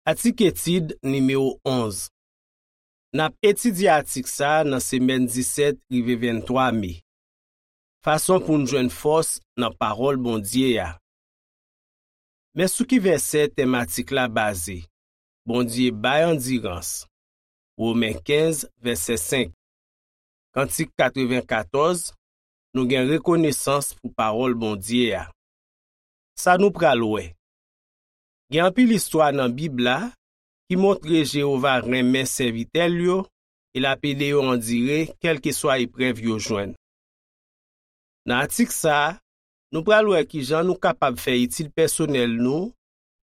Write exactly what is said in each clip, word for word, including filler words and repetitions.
Atik etid nimewo onz. N ap etidye atik sa a nan semèn disèt rive venntwa me. Fason pou n jwenn fòs nan pawòl Bondye a. Men sou ki vèsè tèm atik la baze. Bondye bay andirans. Women kenz, vèsè senk. Kantik katrevenkatòz, nou gen rekonesans pou pawòl Bondye a. Sa nou pral wè. Gen anpil istwa nan Bib la ki montre Jewova renmen sèvitè l yo e l ap ede yo andire kèlkeswa eprèv yo jwenn. Nan atik sa a, nou pral wè ki jan nou kapab fè etid pèsonèl nou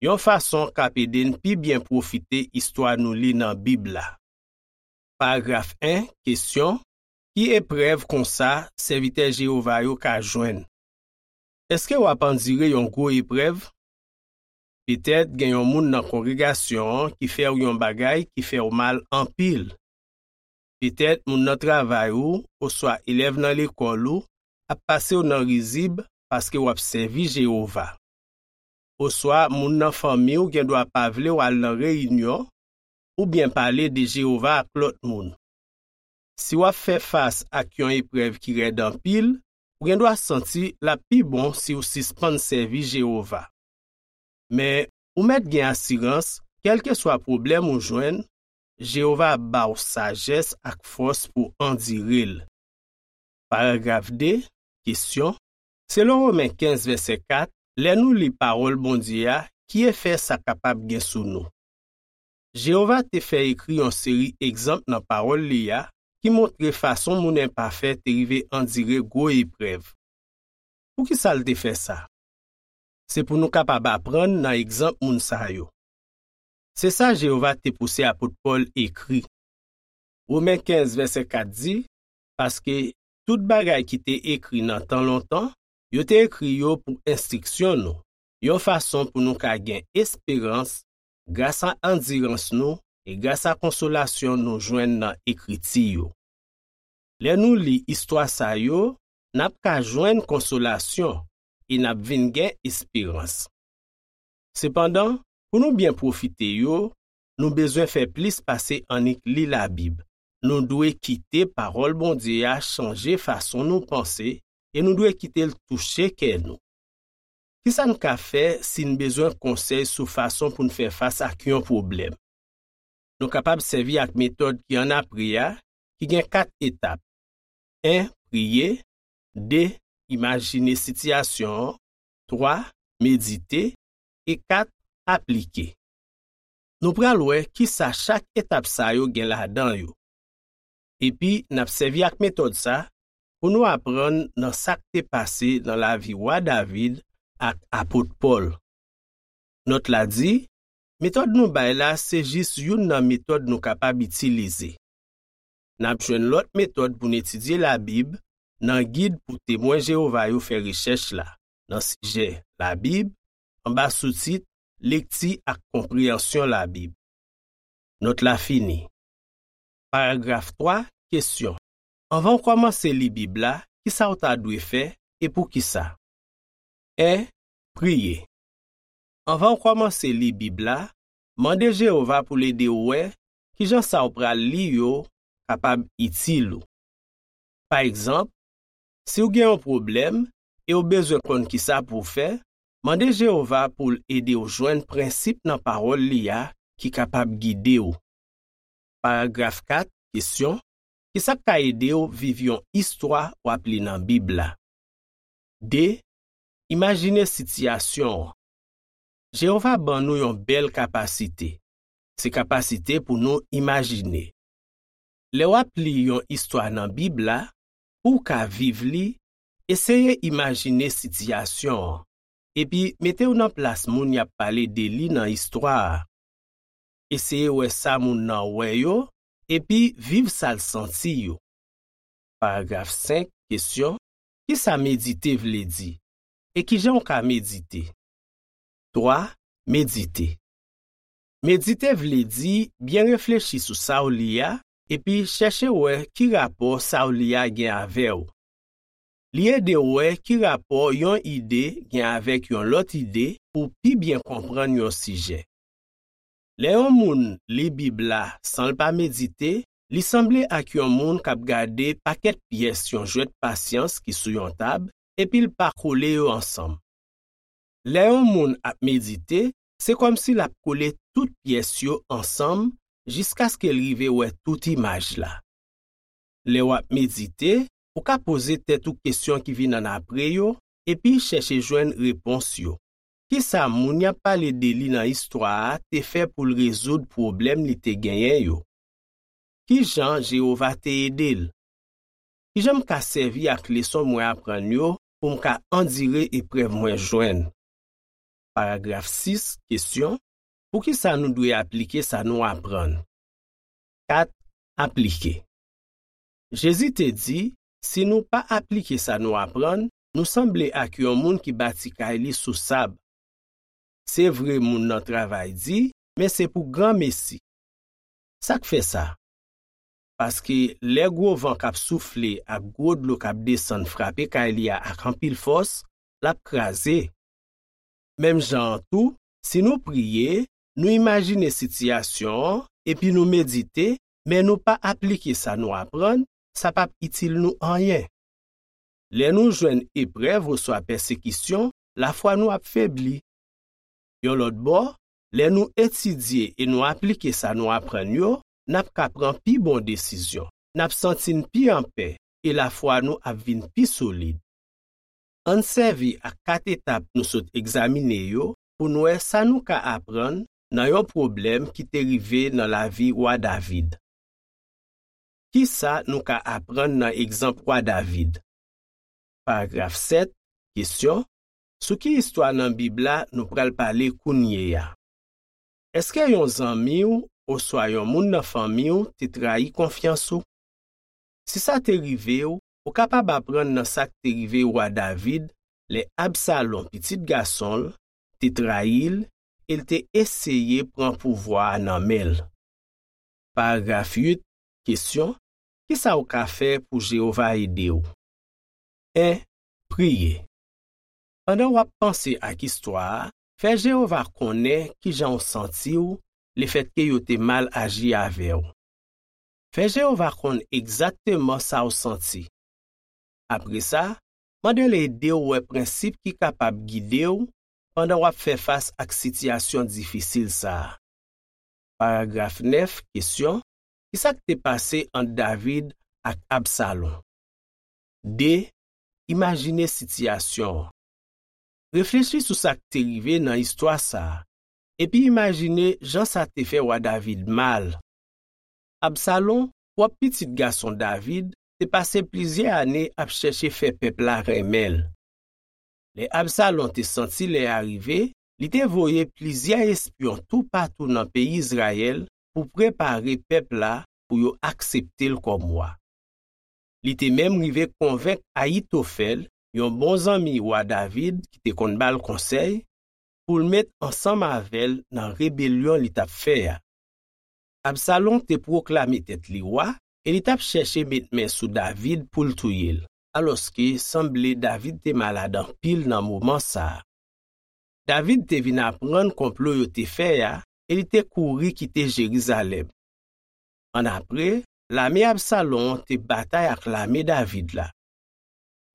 yon fason k ap ede n pi byen pwofite istwa nou li nan Bib la. Paragraf en, kesyon, ki eprèv konsa sèvitè Jewova yo ka jwenn? Èske w ap andire yon gwo eprèv? Petèt gen yon moun nan kongregasyon an ki fè w yon bagay ki fè w mal anpil. Petèt moun nan travay ou oswa elèv nan lekòl ou ap pase w nan rizib paske w ap sèvi Jewova. Oswa moun nan fanmi w gendwa pa vle w al nan reyinyon oubyen pale de Jewova ak lòt moun. Si w ap fè fas ak yon eprèv ki rèd anpil, ou gendwa santi l ap pi bon si w sispann sèvi Jewova. Men, ou mèt gen asirans, kèlkeswa pwoblèm ou jwenn, Jewova ap ba w sajès ak fòs pou andire l. Paragraf de, kesyon, selon Women kenz, vèsè kat, lè nou li pawòl Bondye a, ki efè sa kapab gen sou nou? Jewova te fè ekri yon seri egzanp nan pawòl li a ki montre fason moun enpafè te rive andire gwo eprèv. Poukisa l te fè sa? Se pou nou kapab aprann nan egzanp moun sa yo. Se sa Jewova te pouse apot Pòl ekri. Women kenz, vèsè kat di, paske tout bagay ki te ekri nan tan lontan, yo te ekri yo pou enstriksyon nou, yon fason pou nou ka gen esperans gras a andirans nou e gras a konsolasyon nou jwenn nan Ekriti yo. Lè nou li istwa sa yo, n ap ka jwenn konsolasyon e n ap vin gen esperans. Sepandan, pou nou byen pwofite yo, nou bezwen fè plis pase annik li Labib. Nou dwe kite pawòl Bondye a chanje fason nou panse e nou dwe kite l touche kè nou. Ki sa n ka fè si n bezwen konsèy sou fason pou n fè fas ak yon pwoblèm? Nou kapab sèvi ak metòd ki annapre a, ki gen kat etap. En, priye. De, imajine sitiyasyon an. Twa, medite. E kat, aplike. Nou pral wè ki sa chak etap sa yo gen ladan yo. Epi, n ap sèvi ak metòd sa pou nou aprann nan sa k te pase nan lavi Wa David ak apot Pòl. Nòt la di, metòd nou bay la se jis youn nan metòd nou kapab itilize. N ap jwenn lòt metòd pou n etidye Labib nan gid pou Temwen Jewova yo fè rechèch la, nan sijè Labib, anba soutit Lekti ak Konpreyansyon Labib. Nòt la fini. Paragraf twa, kesyon. Anvan w kòmanse li Bib la, ki sa w ta dwe fè e poukisa? En, priye. Anvan w kòmanse li Bib la, mande Jewova pou l ede w wè ki jan sa w pral li yo kapab itil ou. Pa egzanp, si w gen yon pwoblèm e w bezwen konn ki sa pou w fè, mande Jewova pou l ede w jwenn prensip nan pawòl li a ki kapab gide w. Paragraf kat, kesyon, ki sa k ka ede w viv yon istwa w ap li nan Bib la? De, imajine sitiyasyon an. Jewova ban nou yon bèl kapasite. Se kapasite pou nou imajine. Lè w ap li yon istwa nan Bib la, pou w ka viv li, eseye imajine sitiyasyon an, epi mete w nan plas moun y ap pale de li nan istwa a. Eseye wè sa moun nan wè yo, epi viv sa l santi yo. Paragraf senk, kesyon, ki sa medite vle di? E ki jan w ka medite? Twa, medite. Medite vle di byen reflechi sou sa w li a, epi chèche wè ki rapò sa w li a gen avè w. Li ede w wè ki rapò yon ide gen avèk yon lòt ide pou w pi byen konprann yon sijè. Lè yon moun li Bib la san l pa medite, li sanble ak yon moun k ap gade pakèt pyès yon jwèt pasyans ki sou yon tab, epi l pa kole yo ansanm. Lè yon moun ap medite, se kòmsi l ap kole tout pyès yo ansanm jiskaske l rive wè tout imaj la. Lè w ap medite, ou ka poze tèt ou kesyon ki vin annapre yo, epi chèche jwenn repons yo. Ki sa moun y ap pale de li nan istwa a te fè pou l rezoud pwoblèm li te genyen yo? Ki jan Jewova te ede l? Ki jan m ka sèvi ak leson mwen aprann yo pou m ka andire eprèv mwen jwenn? Paragraf sis, kesyon: poukisa nou dwe aplike sa nou aprann? Kat, aplike. Jezi te di, si nou pa aplike sa nou aprann, nou sanble ak yon moun ki bati kay li sou sab. Se vre, moun nan travay di, men se pou granmesi. Sa k fè sa? Paske lè gwo van k ap soufle ak gwo dlo k ap desann frape kay li a ak anpil fòs, l ap kraze. Menm jan an tou, si nou priye, nou imajine sitiyasyon an, epi nou medite, men nou pa aplike sa nou aprann, sa p ap itil nou anyen. Lè nou jwenn eprèv oswa pèsekisyon, lafwa nou ap febli. Yon lòt bò, lè nou etidye e nou aplike sa nou aprann yo, n ap ka pran pi bon desizyon, n ap santi n pi anpè, e lafwa nou ap vin pi solid. Ann sèvi ak kat etap nou sot egzamine yo pou n wè sa nou ka aprann nan yon pwoblèm ki te rive nan lavi wa David. Ki sa nou ka aprann nan egzanp wa David? Paragraf sèt, kesyon: sou ki istwa nan Bib la nou pral pale kounye a? Èske yon zanmi w oswa yon moun nan fanmi w te trayi konfyans ou? Si sa te rive w, ou kapab aprann nan sa k te rive wa David lè Absalon, pitit gason l, te trayi l e l te eseye pran pouvwa a nan men l. Paragraf uit, kesyon: ki sa w ka fè pou Jewova ede w? En, priye. Pandan w ap panse ak istwa a, fè Jewova konnen ki jan w santi w lefètke yo te mal aji avè w. Fè Jewova konn egzakteman sa w santi. Apre sa, mande l ede w wè prensip ki kapab gide w pandan w ap fè fas ak sitiyasyon difisil sa a. Paragraf nèf, kesyon: ki sa k te pase ant David ak Absalon? De, imajine sitiyasyon an. Reflechi sou sa k te rive nan istwa sa a, epi imajine jan sa te fè wa David mal. Absalon, pwòp pitit gason David, te pase plizyè ane ap chèche fè pèp la renmen l. Lè Absalon te santi lè a rive, li te voye plizyè espyon toupatou nan peyi Izrayèl pou prepare pèp la pou yo aksepte l kòm wa. Li te menm rive konvenk Ayitofèl, yon bon zanmi wa David ki te konn ba l konsèy, pou l met ansanm avè l nan rebelyon li t ap fè a. Absalon te pwoklame tèt li wa e li t ap chèche met men sou David pou l touye l, alòske sanble David te malad anpil nan moman sa a. David te vin aprann konplo yo te fè a e li te kouri kite Jerizalèm. Annapre, lame Absalon an te batay ak lame David la.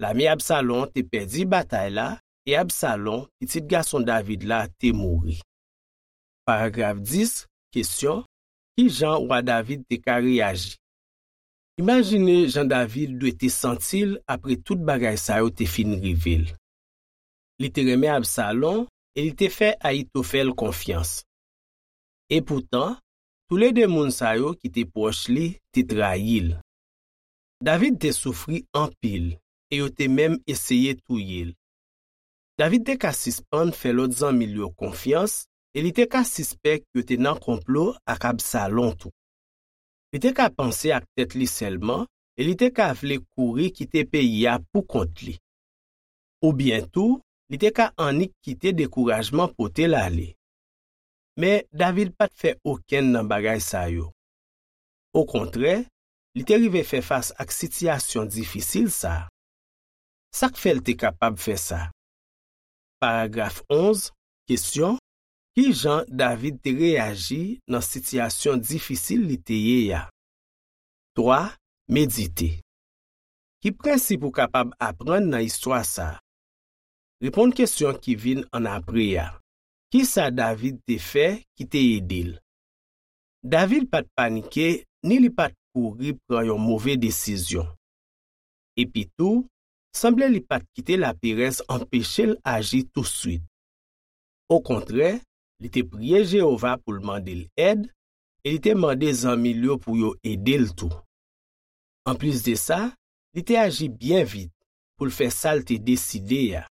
Lame Absalon te pèdi batay la e Absalon, pitit gason David la, te mouri. Paragraf dis, kesyon: ki jan wa David te ka reyaji? Imajine jan David dwe te santi l apre tout bagay sa yo te fin rive l. Li te renmen Absalon e li te fè Ayitofèl konfyans. Epoutan, toulede moun sa yo ki te pwòch li te trayi l. David te soufri anpil e yo te menm eseye touye l. David te ka sispann fè lòt zanmi l yo konfyans e li te ka sispèk yo te nan konplo ak Absalon tou. Li te ka panse ak tèt li sèlman e li te ka vle kouri kite peyi a poukont li. Oubyen tou, li te ka annik kite dekourajman pote l ale. Men, David pa t fè okenn nan bagay sa yo. Okontrè, li te rive fè fas ak sitiyasyon difisil sa a. Sa k fè l te kapab fè sa? Paragraf onz, kesyon: Ki jan David te reyaji nan sitiyasyon difisil li te ye a? Twa, medite. Ki prensip ou kapab aprann nan istwa sa a? Reponn kesyon ki vin annapre a. Ki sa David te fè ki te ede l? David pa t panike ni li pa t kouri pran yon move desizyon. Epitou, sanble li pa t kite laperèz anpeche l aji touswit. Okontrè, li te priye Jewova pou l mande l èd e li te mande zanmi l yo pou yo ede l tou. Anplis de sa, li te aji byen vit pou l fè sa l te deside a.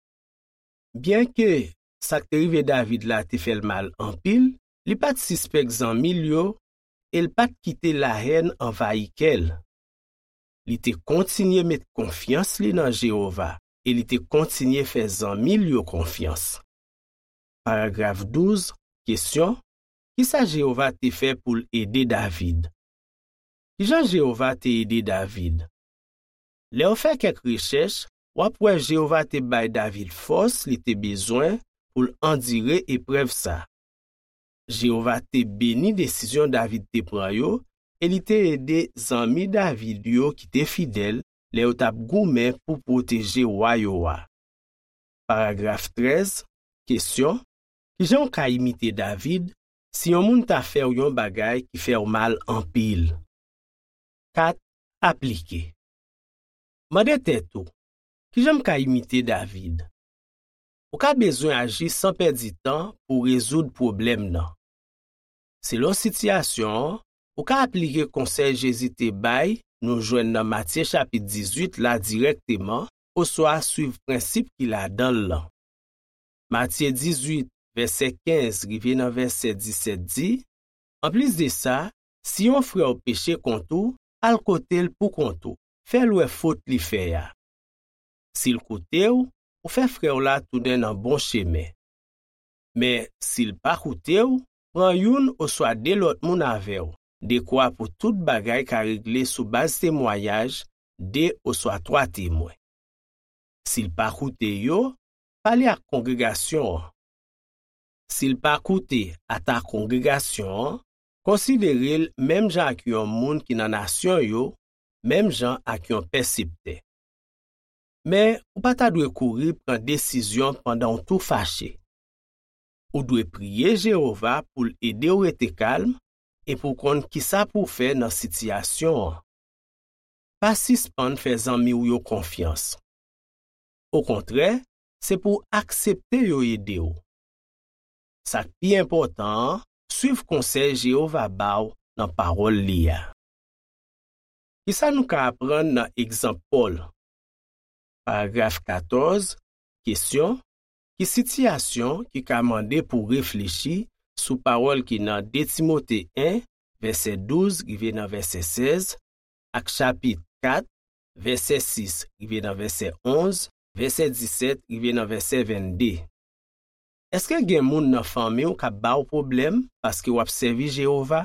Byenke sa k te rive David la te fè l mal anpil, li pa t sispèk zanmi l yo e l pa t kite lahèn anvayi kè l. Li te kontinye met konfyans li nan Jewova e li te kontinye fè zanmi l yo konfyans. Paragraf douz, kesyon, ki sa Jewova te fè pou l ede David? Ki jan Jewova te ede David? Lè w fè kèk rechèch, w ap wè Jewova te bay David fòs li te bezwen pou l andire eprèv sa. Jewova te beni desizyon David te pran yo e li te ede zanmi David yo ki te fidèl lè yo t ap goumen pou pwoteje wa yo a. Paragraf trèz, kesyon, ki jan w ka imite David si yon moun ta fè w yon bagay ki fè w mal anpil? Kat, aplike. Mande tèt ou, ki jan m ka imite David? Ou ka bezwen aji san pèdi tan pou w rezoud pwoblèm nan. Selon sitiyasyon an, ou ka aplike konsèy Jezi te bay nou jwenn nan Matye chapit dizuit la dirèkteman oswa swiv prensip ki ladan l lan. Matye dizuit, vèsè kenz rive nan vèsè disèt di, anplis de sa, si yon frè w peche kont ou, al kote l poukont ou, fè l wè fot li fè a. Si l koute w, ou fè frè w la tounen nan bon chemen. Men, si l pa koute w, pran youn oswa de lòt moun avè w, dekwa pou tout bagay ka regle sou baz temwayaj de oswa twa temwen. Si l pa koute yo, pale ak kongregasyon an. Si l pa koute ata kongregasyon an, konsidere l menm jan ak yon moun ki nan nasyon yo, menm jan ak yon pèseptè. Men, ou pa ta dwe kouri pran desizyon pandan w tou fache. Ou dwe priye Jewova pou l ede w rete kalm e pou w konn ki sa pou w fè nan sitiyasyon an. Pa sispann fè zanmi w yo konfyans. Okontrè, se pou w aksepte yo ede w. Sa k pi enpòtan an, swiv konsèy Jewova ba w nan pawòl li a. Ki sa nou ka aprann nan egzanp Pòl? Paragraf katòz, kesyon, ki sitiyasyon ki ka mande pou w reflechi sou pawòl ki nan de Timote en, vèsè douz rive nan vèsè sèz, ak chapit kat, vèsè sis rive nan vèsè onz, vèsè disèt rive nan vèsè vennde? Èske gen moun nan fanmi w k ap ba w pwoblèm paske w ap sèvi Jewova?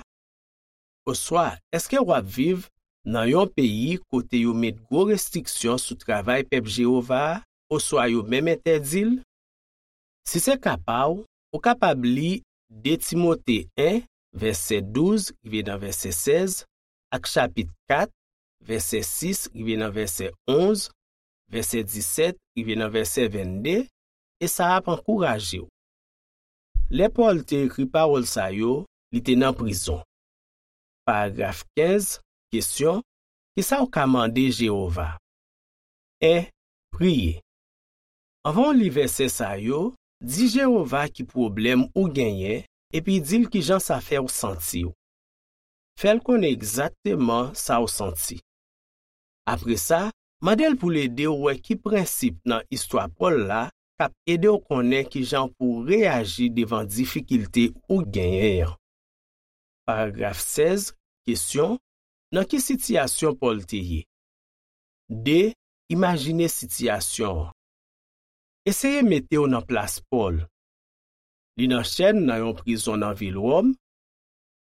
Oswa, èske w ap viv nan yon peyi kote yo met gwo restriksyon sou travay pèp Jewova a, oswa yo menm entèdi l? Si se ka pa w, ou kapab li de Timote en, vèsè douz rive nan vèsè sèz, ak chapit kat, vèsè sis rive nan vèsè onz, vèsè disèt rive nan vèsè vennde, e sa ap ankouraje w. Lè Pòl te ekri pawòl sa yo, li te nan prizon. Paragraf kenz, kesyon, ki sa w ka mande Jewova? En, priye. Anvan w li vèsè sa yo, di Jewova ki pwoblèm ou genyen, epi di l ki jan sa fè w santi w. Fè l konnen egzakteman sa w santi. Apre sa, mande l pou l ede w wè ki prensip nan istwa Pòl la k ap ede w konnen ki jan pou w reyaji devan difikilte ou genyen an. Paragraf sèz, kesyon, nan ki sitiyasyon Pòl te ye? De, imajine sitiyasyon an. Eseye mete w nan plas Pòl. Li nan chèn nan yon prizon nan vil Wòm.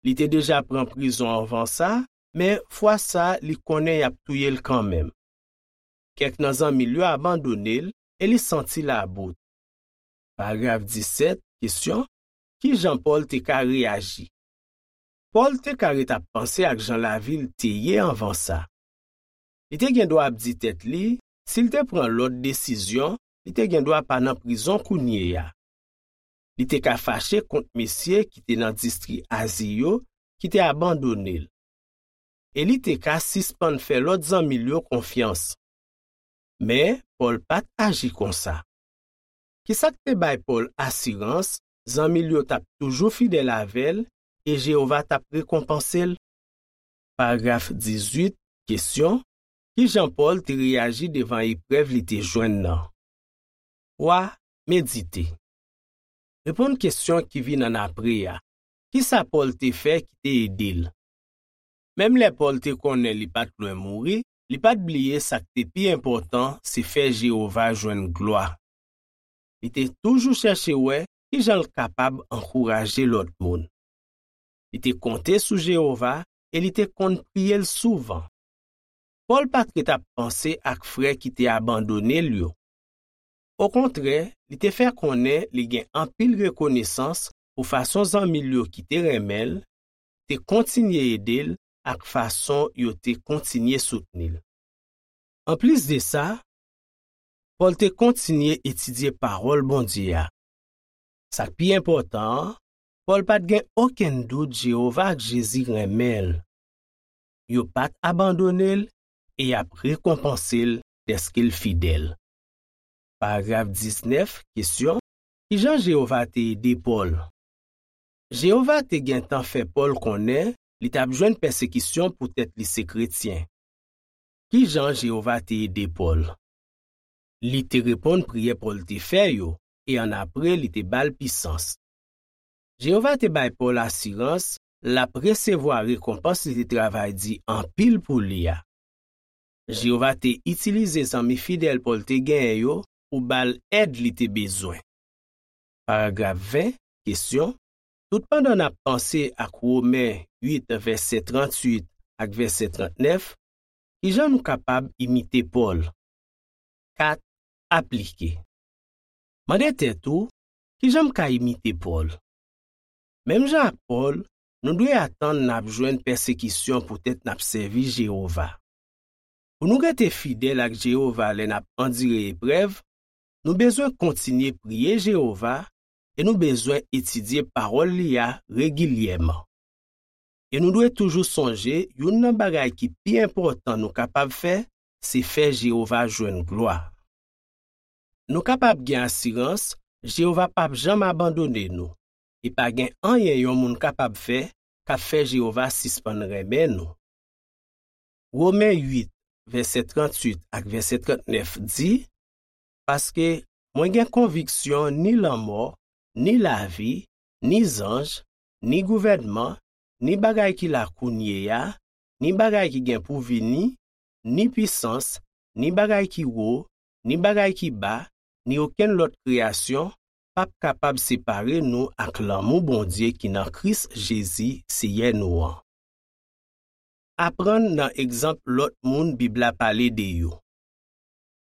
Li te deja pran prizon anvan sa, men fwa sa a li konnen y ap touye l kanmenm. Kèk nan zanmi l yo abandone l e li santi l about. Paragraf disèt, kesyon, ki jan Pòl te ka reyaji? Pòl te ka ret ap panse ak jan lavi l te ye anvan sa. Li te gen dwa ap di tèt li, si l te pran lòt desizyon, li te gen dwa pa nan prizon kounye a. Li te ka fache kont mesye ki te nan distri Azi yo ki te abandone l. E li te ka sispann fè lòt zanmi l yo konfyans. Men, Pòl pa t aji konsa. Ki sa k te bay Pòl asirans zanmi l yo t ap toujou fidèl avè l e Jewova t ap rekonpanse l? Paragraf dizuit, kesyon, ki jan Pòl te reyaji devan eprèv li te jwenn nan? Twa, medite. Reponn kesyon ki vin annapre a. Ki sa Pòl te fè ki te ede l? Menm lè Pòl te konnen li pa t lwen mouri, li pa t bliye sa k te pi enpòtan, se fè Jewova jwenn glwa. Li te toujou chèche wè ki jan l kapab ankouraje lòt moun. Li te konte sou Jewova e li te konn priye l souvan. Pòl pa t ret ap panse ak frè ki te abandone l yo. Okontrè, li te fè konnen li gen anpil rekonesans pou fason zanmi l yo ki te renmen l te kontinye ede l ak fason yo te kontinye soutni l. Anplis de sa, Pòl te kontinye etidye Pawòl Bondye a. Sa k pi enpòtan an, Pòl pa t gen okenn dout Jewova ak Jezi renmen l. Yo pa t abandone l e y ap rekonpanse l dèske l fidèl. Paragraf diznèf, kesyon, ki jan Jewova te ede Pòl? Jewova te gentan fè Pòl konnen li t ap jwenn pèsekisyon poutèt li se kretyen. Ki jan Jewova te ede Pòl? Li te reponn priyè Pòl te fè yo, e annapre li te ba l pisans. Jewova te bay Pòl asirans l ap resevwa rekonpans li te travay di anpil pou li a. Jewova te itilize zanmi fidèl Pòl te genyen yo pou ba l èd li te bezwen. Paragraf ven, kesyon, toutpandan n ap panse ak Women uit, vèsè tranntuit ak vèsè trannèf, ki jan nou kapab imite Pòl? Kat, aplike. Mande tèt ou, ki jan m ka imite Pòl? Menm jan ak Pòl, nou dwe atann n ap jwenn pèsekisyon poutèt n ap sèvi Jewova. Pou nou rete fidèl ak Jewova lè n ap andire eprèv, nou bezwen kontinye priye Jewova e nou bezwen etidye Pawòl li a regilyèman. E nou dwe toujou sonje youn nan bagay ki pi enpòtan nou kapab fè, se fè Jewova jwenn glwa. Nou kapab gen asirans Jewova p ap janm abandone nou, e pa gen anyen yon moun kapab fè k ap fè Jewova sispann renmen nou. Women uit, vèsè tranntuit ak vèsè trannèf di, paske mwen gen konviksyon ni lanmò, ni lavi, ni zanj, ni gouvènman, ni bagay ki la kounye a, ni bagay ki gen pou vini, ni pisans, ni bagay ki wo, ni bagay ki ba, ni okenn lòt kreyasyon p ap kapab separe nou ak lanmou Bondye ki nan Kris Jezi, Seyè nou an. Aprann nan egzanp lòt moun Bib la pale de yo.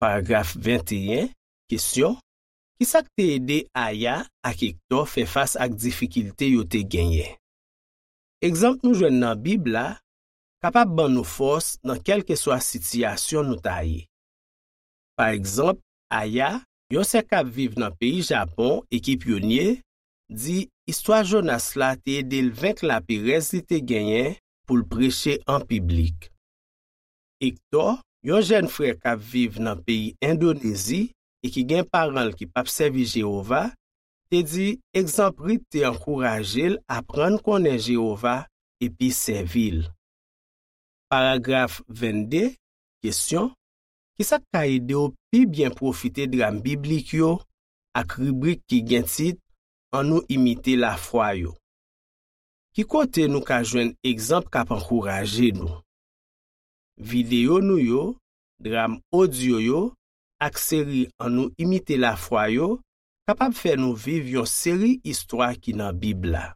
Paragraf venteyen, kesyon, ki sa k te ede Aya ak Ektò fè fas ak difikilte yo te genyen? Egzanp nou jwenn nan Bib la kapab ban nou fòs nan kèlkeswa sitiyasyon nou ta ye. Pa egzanp, Aya, yon sè k ap viv nan peyi Japon e ki pyonye, di istwa Jonas la te ede l venk laperèz li te genyen pou l preche an piblik. Ektò, yon jèn frè k ap viv nan peyi Endonezi e ki gen paran l ki p ap sèvi Jewova, te di egzanp Rit te ankouraje l aprann konnen Jewova epi sèvi l. Paragraf vennde, kesyon, ki sa k ka ede w pi byen pwofite dram biblik yo ak ribrik ki gen tit Annou imite lafwa yo? Ki kote nou ka jwenn egzanp k ap ankouraje nou? Videyo nou yo, dram odyo yo, ak seri Annou imite lafwa yo kapab fè nou viv yon seri istwa ki nan Bib la.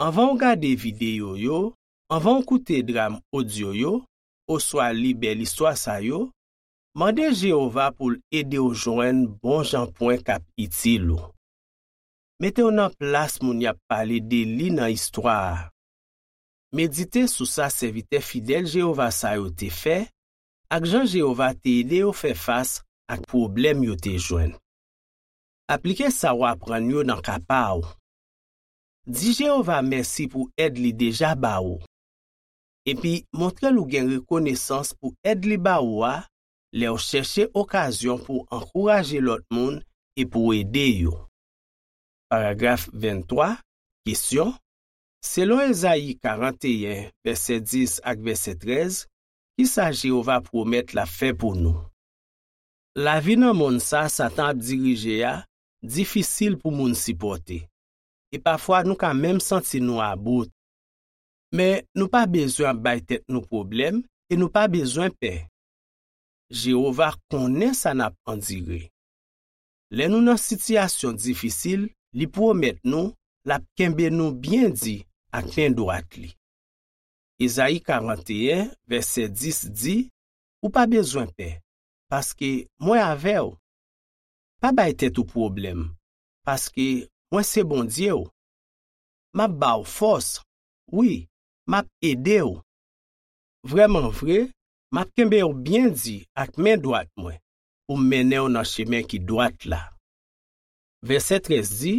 Anvan w gade videyo yo, anvan w koute dram odyo yo, oswa li bèl istwa sa yo, mande Jewova pou l ede w jwenn bon jan pwen k ap itil ou. Mete w nan plas moun y ap pale de li nan istwa a. Medite sou sa sèvitè fidèl Jewova sa yo te fè ak jan Jewova te ede yo fè fas ak pwoblèm yo te jwenn. Aplike sa w aprann yo nan ka pa w. Di Jewova mèsi pou èd li deja ba ou. Epi montre l ou gen rekonesans pou èd li ba ou a lè w chèche okazyon pou w ankouraje lòt moun e pou w ede yo. Paragraf venntwa, kesyon, selon Ezayi karanteyen, vèsè dis ak vèsè trèz, ki sa Jewova pwomèt l ap fè pou nou? Lavi nan monn sa Satan ap dirije a difisil pou moun sipòte, e pafwa nou ka menm santi nou about. Men nou pa bezwen ap bay tèt nou pwoblèm e nou pa bezwen pè. Jewova konnen sa n ap andire. Lè nou nan sitiyasyon difisil, li pwomèt nou l ap kenbe nou byen di ak men dwat li. Ezayi karanteyen, vèsè dis di, ou pa bezwen pè, paske mwen avè w. Pa bay tèt ou pwoblèm, paske mwen se Bondye w. M ap ba w fòs, wi, m ap ede w. Vrèman vre, m ap kenbe w byen di ak men dwat mwen, pou m mennen w nan chemen ki dwat la. Vèsè trèz di,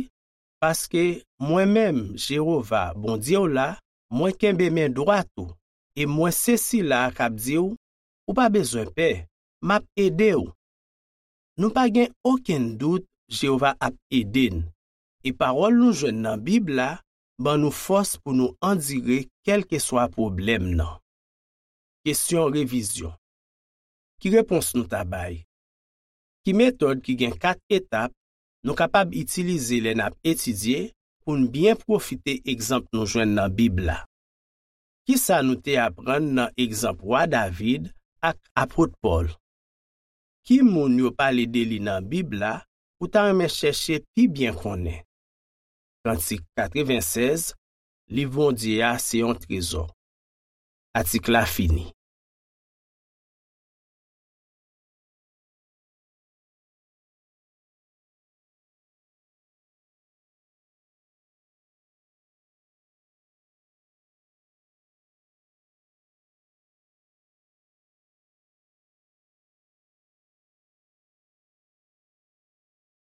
paske mwen menm, Jewova, Bondye w la, mwen kenbe men dwat ou, e mwen se sila a k ap di w, ou pa bezwen pè, m ap ede w. Nou pa gen okenn dout Jewova ap ede n, e pawòl nou jwenn nan Bib la ban nou fòs pou nou andire kèlkeswa pwoblèm nan. Kesyon revizyon. Ki repons nou ta bay? Ki metòd ki gen kat etap nou kapab itilize lè n ap etidye pou n byen pwofite egzanp nou jwenn nan Bib la? Ki sa nou te aprann nan egzanp Wa David ak Apot Pòl? Ki moun yo pale de li nan Bib la ou ta renmen chèche pi byen konnen? Kantik katrevensèz, Liv Bondye a se yon trezò. Atik la fini.